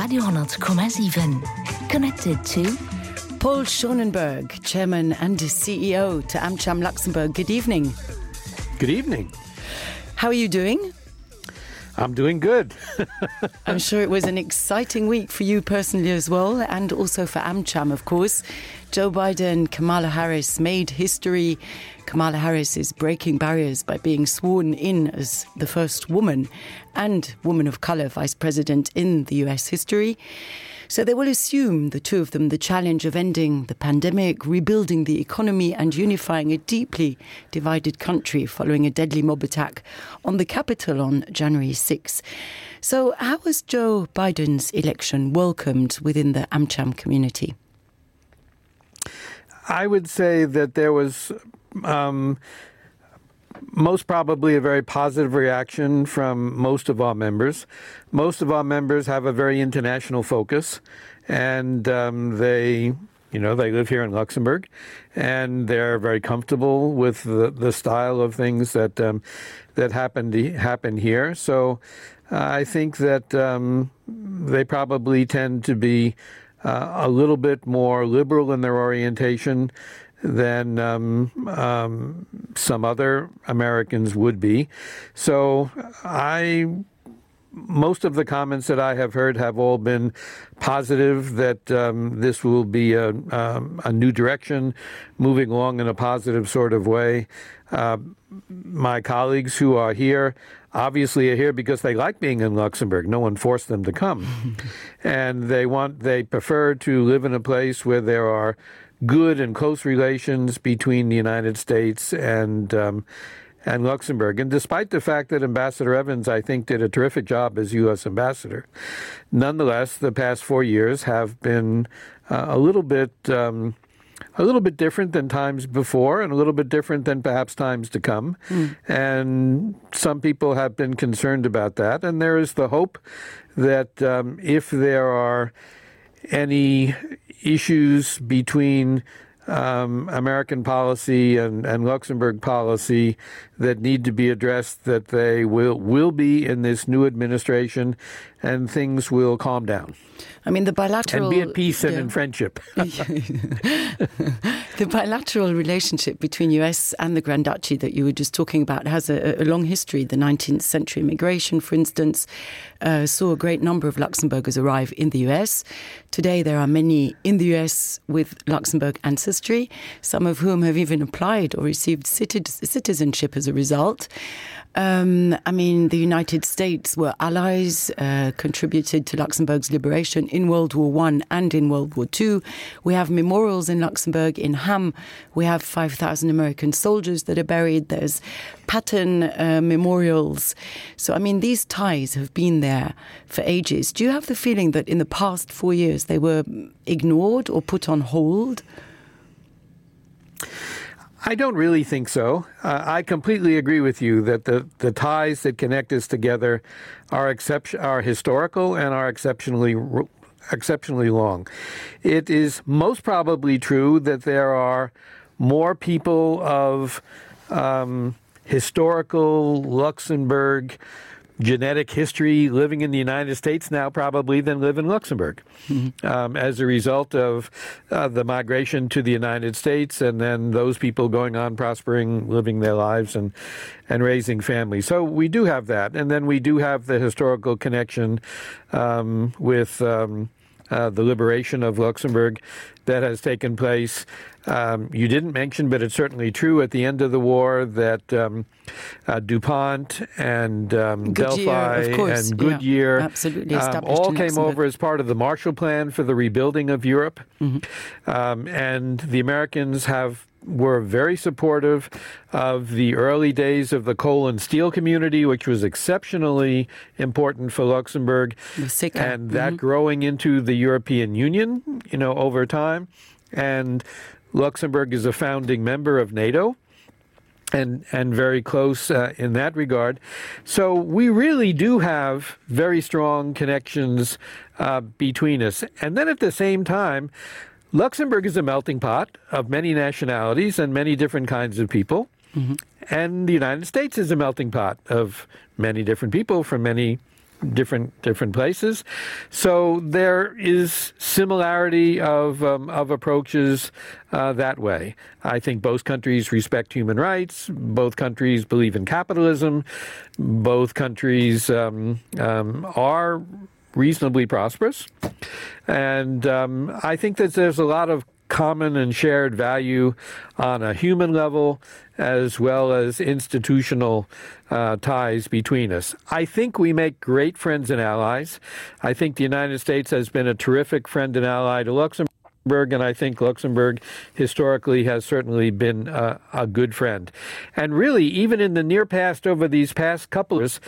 Radio,7. Connected to Paul Schonenberg, Chairman and CEO to AmCham Luxembourg. Good evening. Good evening. How are you doing? I'm doing good. I'm sure it was an exciting week for you personally as well, and also for AmCham, of course. Joe Biden, Kamala Harris made history. Kamala Harris is breaking barriers by being sworn in as the first woman and woman of color vice president in the US history. So they will assume, the two of them, the challenge of ending the pandemic, rebuilding the economy and unifying a deeply divided country following a deadly mob attack on the Capitol on January 6. So how was Joe Biden's election welcomed within the AmCham community? I would say that there was most probably a very positive reaction from most of our members. Most of our members have a very international focus, and they live here in Luxembourg, and they're very comfortable with the style of things that happened here. So I think that they probably tend to be a little bit more liberal in their orientation than some other Americans would be. So most of the comments that I have heard have all been positive, that this will be a new direction, moving along in a positive sort of way. My colleagues who are here obviously are here because they like being in Luxembourg. No one forced them to come. And they prefer to live in a place where there are good and close relations between the United States and Luxembourg. And despite the fact that Ambassador Evans, I think, did a terrific job as U.S. ambassador, nonetheless, the past 4 years have been a little bit different than times before, and a little bit different than perhaps times to come. And some people have been concerned about that. And there is the hope that if there are any issues between American policy and Luxembourg policy that need to be addressed, that they will be in this new administration, and things will calm down. I mean, the bilateral... And be at peace and in friendship. The bilateral relationship between US and the Grand Duchy that you were just talking about has a long history. The 19th century migration, for instance, saw a great number of Luxembourgers arrive in the US. Today, there are many in the US with Luxembourg ancestry, some of whom have even applied or received citizenship as a result. The United States were allies, contributed to Luxembourg's liberation in World War I and in World War II. We have memorials in Luxembourg. In Ham, we have 5,000 American soldiers that are buried. There's Patton memorials. So, these ties have been there for ages. Do you have the feeling that in the past 4 years they were ignored or put on hold? I don't really think so. I completely agree with you that the ties that connect us together are historical and are exceptionally long. It is most probably true that there are more people of historical Luxembourg genetic history living in the United States now probably than live in Luxembourg, as a result of the migration to the United States, and then those people going on prospering, living their lives and raising families. So we do have that. And then we do have the historical connection with the liberation of Luxembourg that has taken place. You didn't mention, but it's certainly true, at the end of the war that DuPont and Delphi and Goodyear all came over as part of the Marshall Plan for the rebuilding of Europe. And the Americans were very supportive of the early days of the coal and steel community, which was exceptionally important for Luxembourg, and that growing into the European Union, over time. And Luxembourg is a founding member of NATO and very close in that regard. So we really do have very strong connections between us. And then at the same time, Luxembourg is a melting pot of many nationalities and many different kinds of people. And the United States is a melting pot of many different people from many different places. So there is similarity of approaches that way. I think both countries respect human rights. Both countries believe in capitalism. Both countries are reasonably prosperous. And I think that there's a lot of common and shared value on a human level as well as institutional ties between us. I think we make great friends and allies. I think the United States has been a terrific friend and ally to Luxembourg, and I think Luxembourg historically has certainly been a good friend. And really, even in the near past, over these past couple of years,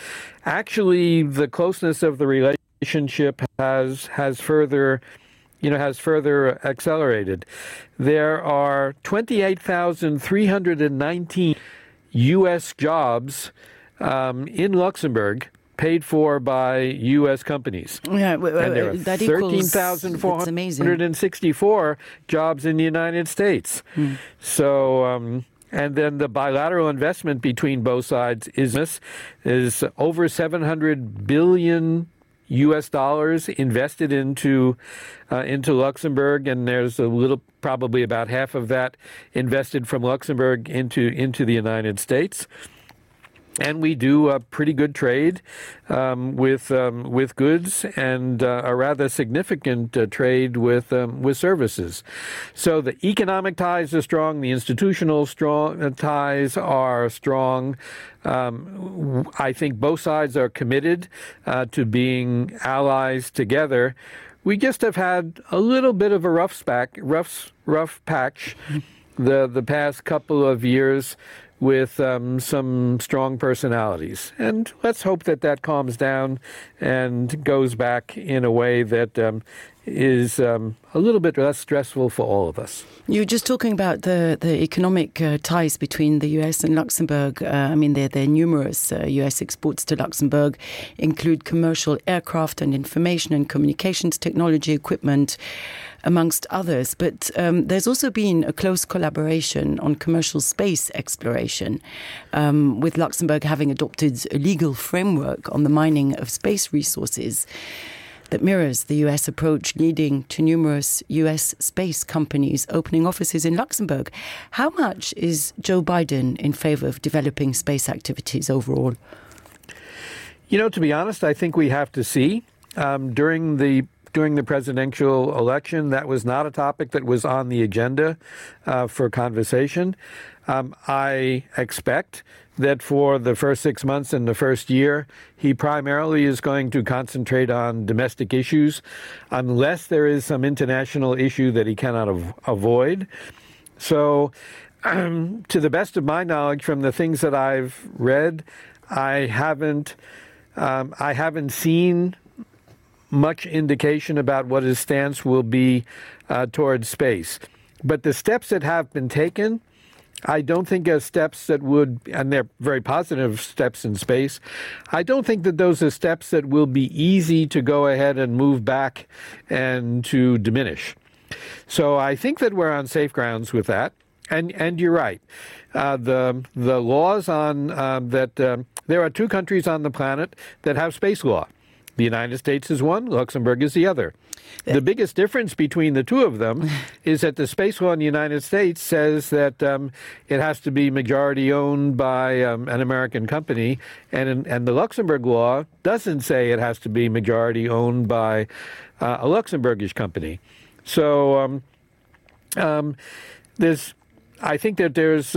actually the closeness of the relationship has further accelerated. There are 28,319 U.S. jobs in Luxembourg paid for by U.S. companies. Yeah, and there are 13,464 jobs in the United States. So, and then the bilateral investment between both sides is over $700 billion U.S. dollars invested into Luxembourg, and there's probably about half of that invested from Luxembourg into the United States. And we do a pretty good trade with goods and a rather significant trade with services. So the economic ties are strong. The institutional ties are strong. I think both sides are committed to being allies together. We just have had a little bit of a rough patch the past couple of years with some strong personalities. And let's hope that calms down and goes back in a way that is a little bit less stressful for all of us. You were just talking about the economic ties between the US and Luxembourg. I mean, there are numerous US exports to Luxembourg, include commercial aircraft and information and communications technology equipment, amongst others. But there's also been a close collaboration on commercial space exploration, with Luxembourg having adopted a legal framework on the mining of space resources that mirrors the US approach, leading to numerous US space companies opening offices in Luxembourg. How much is Joe Biden in favor of developing space activities overall? To be honest, I think we have to see. During the presidential election, that was not a topic that was on the agenda for conversation. I expect that for the first 6 months and the first year, he primarily is going to concentrate on domestic issues, unless there is some international issue that he cannot avoid. So, to the best of my knowledge, from the things that I've read, I haven't seen much indication about what his stance will be towards space. But the steps that have been taken, I don't think are steps that would, and they're very positive steps in space, I don't think that those are steps that will be easy to go ahead and move back and to diminish. So I think that we're on safe grounds with that. And you're right. The laws on that there are two countries on the planet that have space law. The United States is one, Luxembourg is the other. The biggest difference between the two of them is that the space law in the United States says that it has to be majority owned by an American company, and the Luxembourg law doesn't say it has to be majority owned by a Luxembourgish company. So I think that there's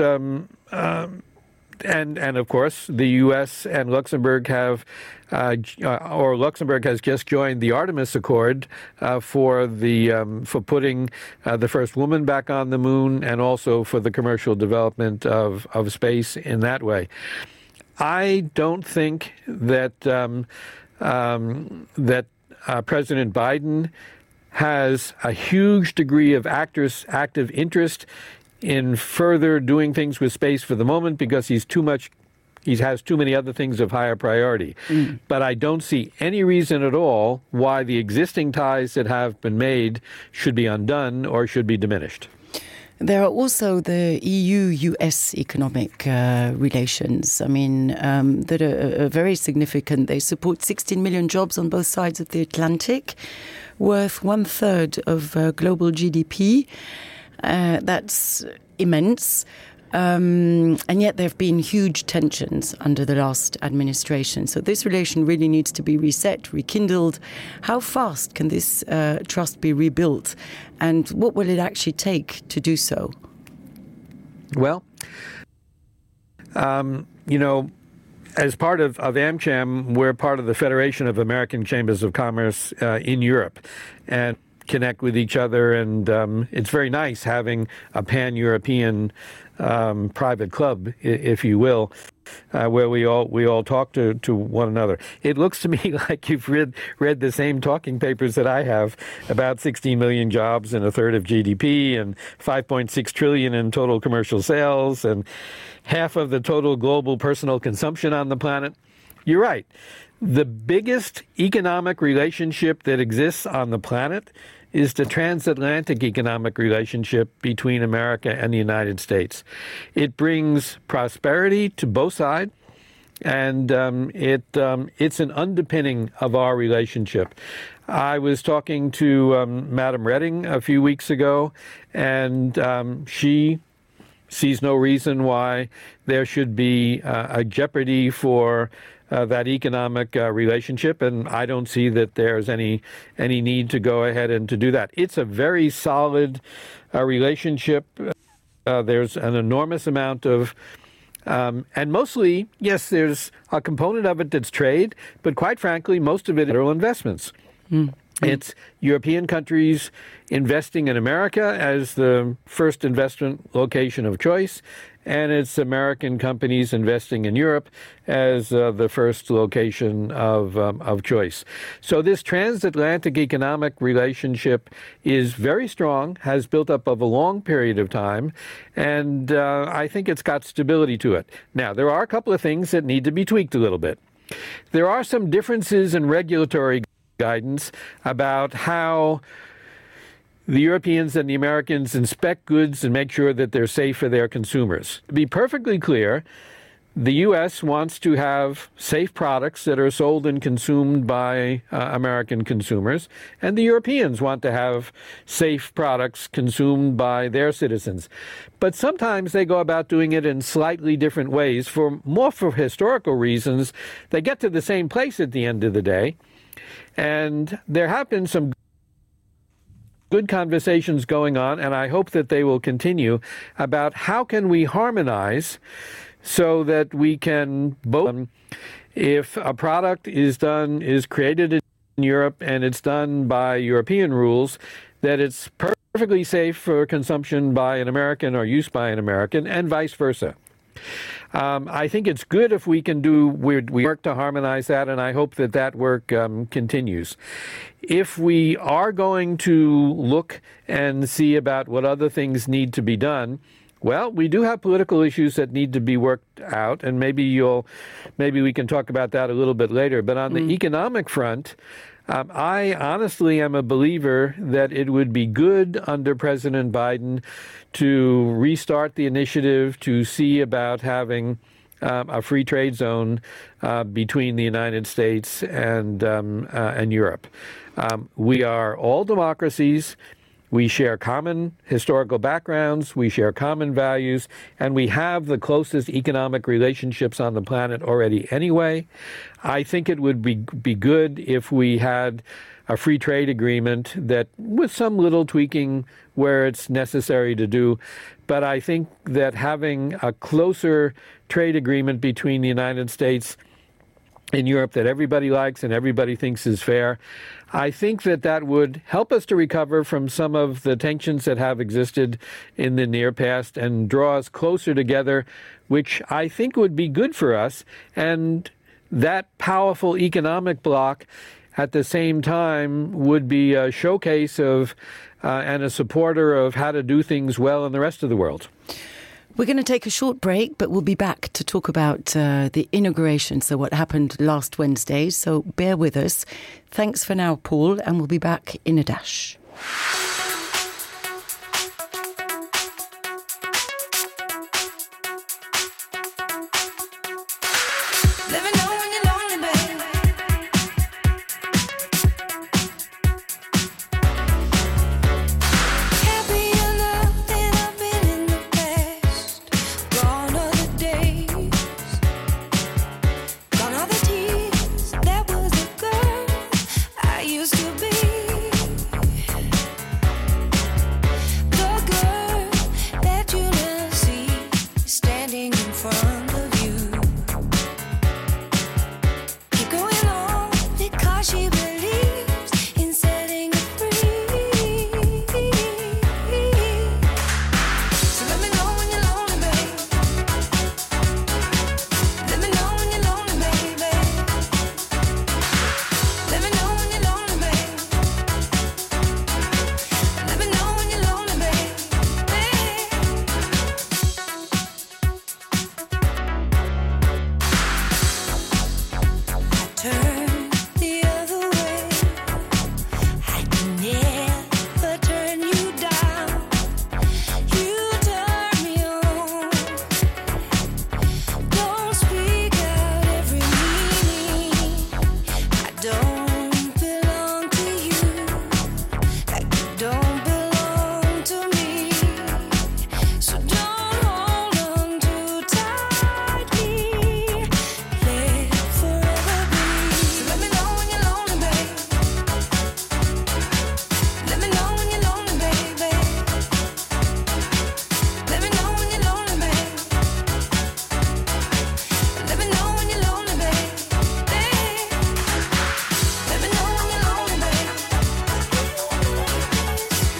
and of course, the U.S. and Luxembourg have, or Luxembourg has just joined the Artemis Accord for putting the first woman back on the moon, and also for the commercial development of space in that way. I don't think that President Biden has a huge degree of active interest in further doing things with space for the moment, because he has too many other things of higher priority. But I don't see any reason at all why the existing ties that have been made should be undone or should be diminished. There are also the EU-US economic relations, that are very significant. They support 16 million jobs on both sides of the Atlantic, worth 1/3 of global GDP. That's immense. And yet there have been huge tensions under the last administration. So this relation really needs to be reset, rekindled. How fast can this trust be rebuilt? And what will it actually take to do so? Well, as part of AmCham, we're part of the Federation of American Chambers of Commerce in Europe and connect with each other. And it's very nice having a pan-European private club, if you will, where we all talk to one another. It looks to me like you've read the same talking papers that I have about 16 million jobs and 1/3 of GDP and 5.6 trillion in total commercial sales and half of the total global personal consumption on the planet. You're right. The biggest economic relationship that exists on the planet is the transatlantic economic relationship between America and the United States. It brings prosperity to both sides, and it's an underpinning of our relationship. I was talking to Madam Reding a few weeks ago, and she sees no reason why there should be a jeopardy for that economic relationship, and I don't see that there's any need to go ahead and to do that. It's a very solid relationship. There's an enormous amount of, and mostly, yes, there's a component of it that's trade, but quite frankly, most of it are investments. It's European countries investing in America as the first investment location of choice, and it's American companies investing in Europe as the first location of choice. So this transatlantic economic relationship is very strong, has built up over a long period of time, and I think it's got stability to it. Now, there are a couple of things that need to be tweaked a little bit. There are some differences in regulatory guidance about how the Europeans and the Americans inspect goods and make sure that they're safe for their consumers. To be perfectly clear, the U.S. wants to have safe products that are sold and consumed by American consumers, and the Europeans want to have safe products consumed by their citizens. But sometimes they go about doing it in slightly different ways. For historical reasons, they get to the same place at the end of the day. And there have been some good conversations going on, and I hope that they will continue, about how can we harmonize so that we can both, if a product is created in Europe and it's done by European rules, that it's perfectly safe for consumption by an American or use by an American, and vice versa. I think it's good if we can we work to harmonize that, and I hope that work continues. If we are going to look and see about what other things need to be done, well, we do have political issues that need to be worked out, and maybe we can talk about that a little bit later. But on the economic front, I honestly am a believer that it would be good under President Biden to restart the initiative to see about having a free trade zone between the United States and Europe. We are all democracies. We share common historical backgrounds, we share common values, and we have the closest economic relationships on the planet already anyway. I think it would be good if we had a free trade agreement that, with some little tweaking where it's necessary to do, but I think that having a closer trade agreement between the United States and Europe that everybody likes and everybody thinks is fair, I think that would help us to recover from some of the tensions that have existed in the near past and draw us closer together, which I think would be good for us. And that powerful economic bloc at the same time would be a showcase of and a supporter of how to do things well in the rest of the world. We're going to take a short break, but we'll be back to talk about the inauguration, so what happened last Wednesday. So bear with us. Thanks for now, Paul, and we'll be back in a dash. she believes in setting it free. So let me know when you're lonely, babe. Let me know when you're lonely, baby. Let me know when you're lonely, babe. Let me know when you're lonely, babe. Turn the other way. I can never turn you down. You turn me on. Don't speak out every meaning. I don't belong to you, like you don't belong to me. So don't hold on too tightly. Let forever be. So let me know when you're lonely, babe. Let me know when you're lonely, baby. Let me know when you're lonely, babe. Let me know when you're lonely, babe. Let me know when you're lonely, babe.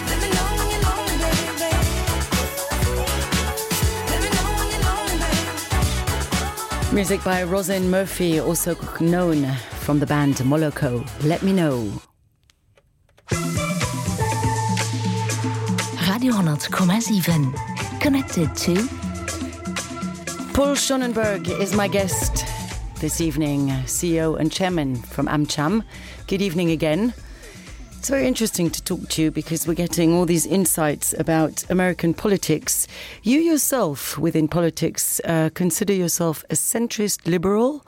Let me know when you're lonely, baby. Let me know when you're lonely, babe. Music by Rosin Murphy, also known from the band Moloko. Let me know. Radio 100,7. Connected to Paul Schonenberg is my guest this evening, CEO and chairman from AmCham. Good evening again. It's very interesting to talk to you because we're getting all these insights about American politics. You yourself, within politics, consider yourself a centrist liberal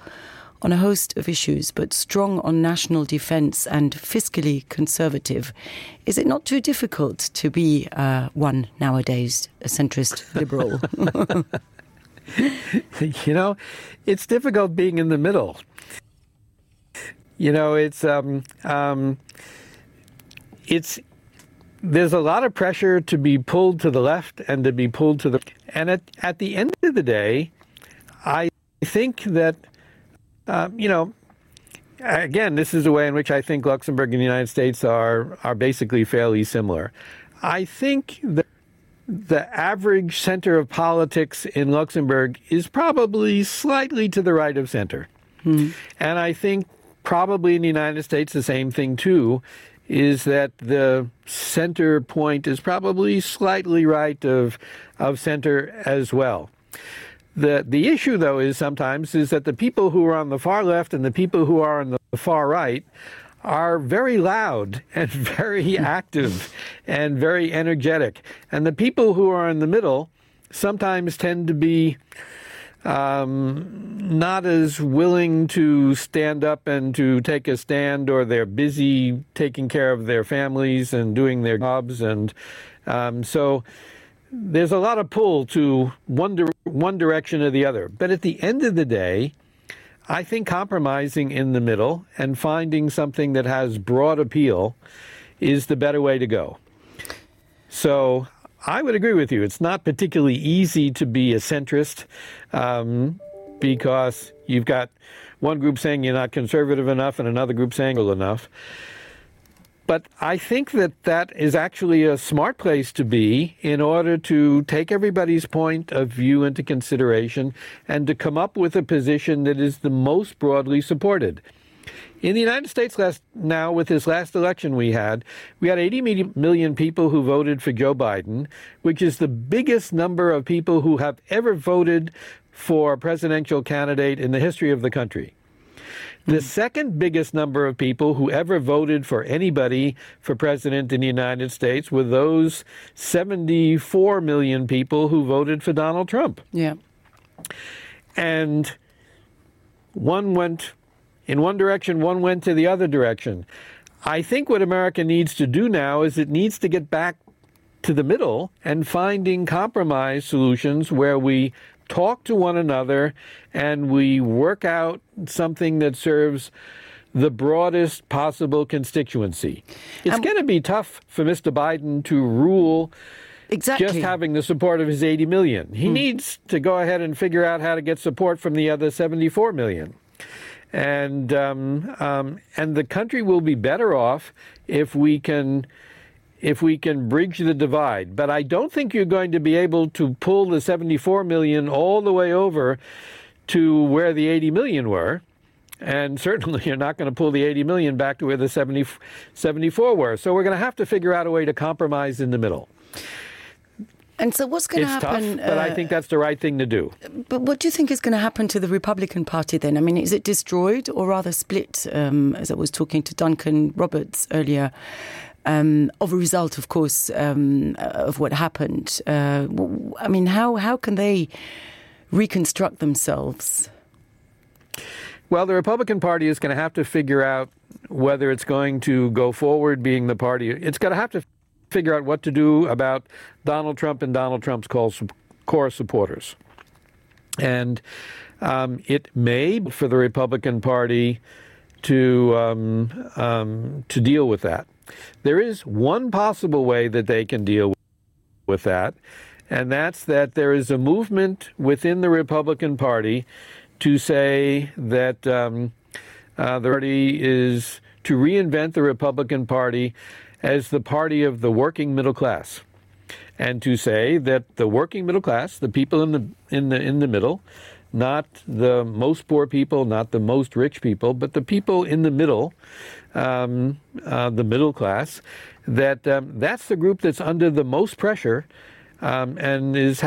on a host of issues, but strong on national defense and fiscally conservative. Is it not too difficult to be one nowadays, a centrist liberal? You know, it's difficult being in the middle. You know, there's a lot of pressure to be pulled to the left and to be pulled to the... And at the end of the day, I think that, you know, again, this is the way in which I think Luxembourg and the United States are basically fairly similar. I think that the average center of politics in Luxembourg is probably slightly to the right of center. And I think probably in the United States the same thing too, is that the center point is probably slightly right of center as well. The issue, though, is sometimes is that the people who are on the far left and the people who are on the far right are very loud and very active and very energetic. And the people who are in the middle sometimes tend to be not as willing to stand up and to take a stand, or they're busy taking care of their families and doing their jobs. And so there's a lot of pull to one direction or the other. But at the end of the day, I think compromising in the middle and finding something that has broad appeal is the better way to go. So I would agree with you. It's not particularly easy to be a centrist because you've got one group saying you're not conservative enough and another group saying well enough. But I think that is actually a smart place to be in order to take everybody's point of view into consideration and to come up with a position that is the most broadly supported. In the United States now, with this last election we had 80 million people who voted for Joe Biden, which is the biggest number of people who have ever voted for a presidential candidate in the history of the country. The second biggest number of people who ever voted for anybody for president in the United States were those 74 million people who voted for Donald Trump. Yeah. And one went in one direction, one went to the other direction. I think what America needs to do now is it needs to get back to the middle and finding compromise solutions where we talk to one another and we work out something that serves the broadest possible constituency. It's going to be tough for Mr. Biden to rule exactly just having the support of his 80 million. He needs to go ahead and figure out how to get support from the other 74 million. and the country will be better off if we can bridge the divide. But I don't think you're going to be able to pull the 74 million all the way over to where the 80 million were. And certainly you're not going to pull the 80 million back to where the 74 were. So we're going to have to figure out a way to compromise in the middle. And so what's going to happen? It's tough, but I think that's the right thing to do. But what do you think is going to happen to the Republican Party then? I mean, is it destroyed or rather split, as I was talking to Duncan Roberts earlier, of a result, of course, of what happened? I mean, how can they reconstruct themselves? Well, the Republican Party is going to have to figure out whether it's going to go forward being the party. It's going to have to figure out what to do about Donald Trump and Donald Trump's core supporters. And it may be for the Republican Party to deal with that. There is one possible way that they can deal with that, and that's that there is a movement within the Republican Party to say that the party is to reinvent the Republican Party as the party of the working middle class, and to say that the working middle class, the people in the middle, not the most poor people, not the most rich people, but the people in the middle, the middle class, that's the group that's under the most pressure, and it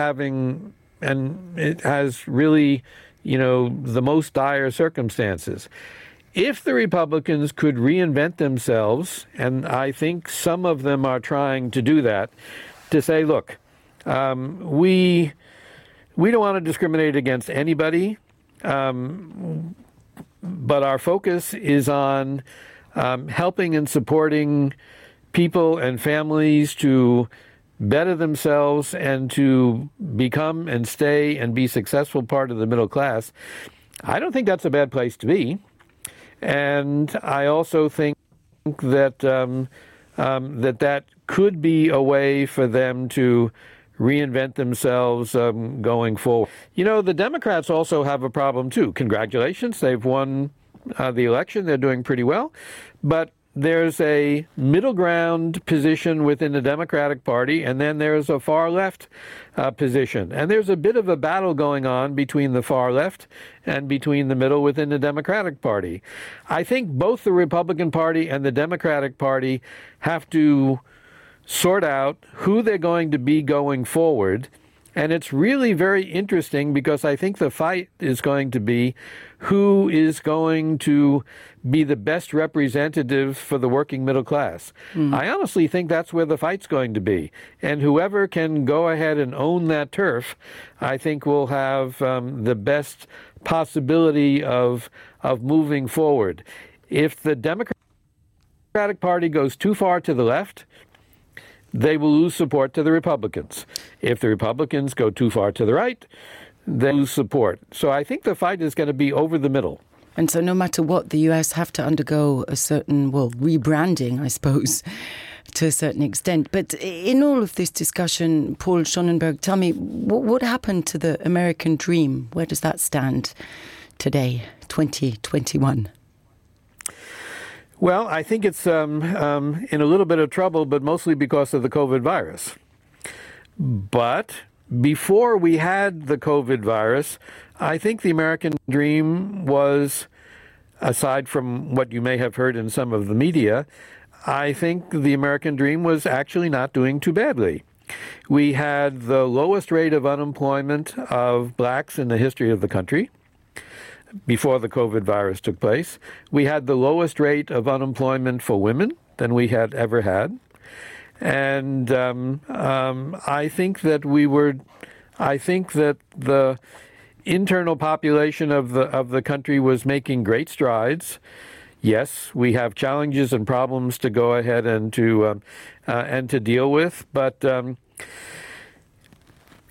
has really, the most dire circumstances. If the Republicans could reinvent themselves, and I think some of them are trying to do that, to say, look, we don't want to discriminate against anybody, but our focus is on helping and supporting people and families to better themselves and to become and stay and be successful part of the middle class. I don't think that's a bad place to be. And I also think that that could be a way for them to reinvent themselves going forward. The Democrats also have a problem, too. Congratulations. They've won the election. They're doing pretty well. But there's a middle ground position within the Democratic Party, and then there's a far left position. And there's a bit of a battle going on between the far left and between the middle within the Democratic Party. I think both the Republican Party and the Democratic Party have to sort out who they're going to be going forward. And it's really very interesting because I think the fight is going to be who is going to be the best representative for the working middle class. I honestly think that's where the fight's going to be. And whoever can go ahead and own that turf, I think will have the best possibility of moving forward. If the Democratic Party goes too far to the left, they will lose support to the Republicans. If the Republicans go too far to the right, they lose support. So I think the fight is going to be over the middle. And so no matter what, the US have to undergo a certain, rebranding, I suppose, to a certain extent. But in all of this discussion, Paul Schonenberg, tell me, what happened to the American dream? Where does that stand today, 2021? Well, I think it's in a little bit of trouble, but mostly because of the COVID virus. But before we had the COVID virus, I think the American dream was, aside from what you may have heard in some of the media, I think the American dream was actually not doing too badly. We had the lowest rate of unemployment of blacks in the history of the country before the COVID virus took place. We had the lowest rate of unemployment for women than we had ever had. And I think that the internal population of the country was making great strides. Yes, we have challenges and problems to go ahead and to deal with, but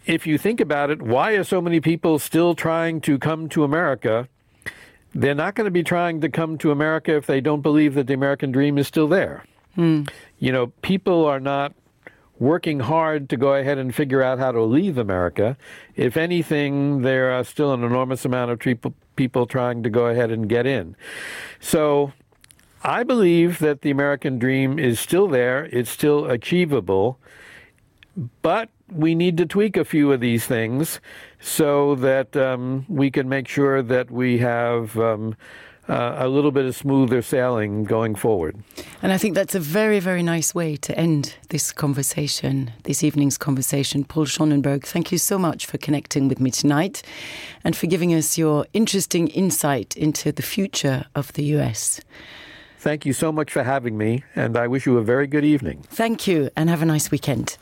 if you think about it, why are so many people still trying to come to America? They're not going to be trying to come to America if they don't believe that the American dream is still there. People are not working hard to go ahead and figure out how to leave America. If anything, there are still an enormous amount of people trying to go ahead and get in. So I believe that the American dream is still there. It's still achievable. But we need to tweak a few of these things so that we can make sure that we have a little bit of smoother sailing going forward. And I think that's a very, very nice way to end this conversation, this evening's conversation. Paul Schonenberg, thank you so much for connecting with me tonight and for giving us your interesting insight into the future of the US. Thank you so much for having me, and I wish you a very good evening. Thank you, and have a nice weekend.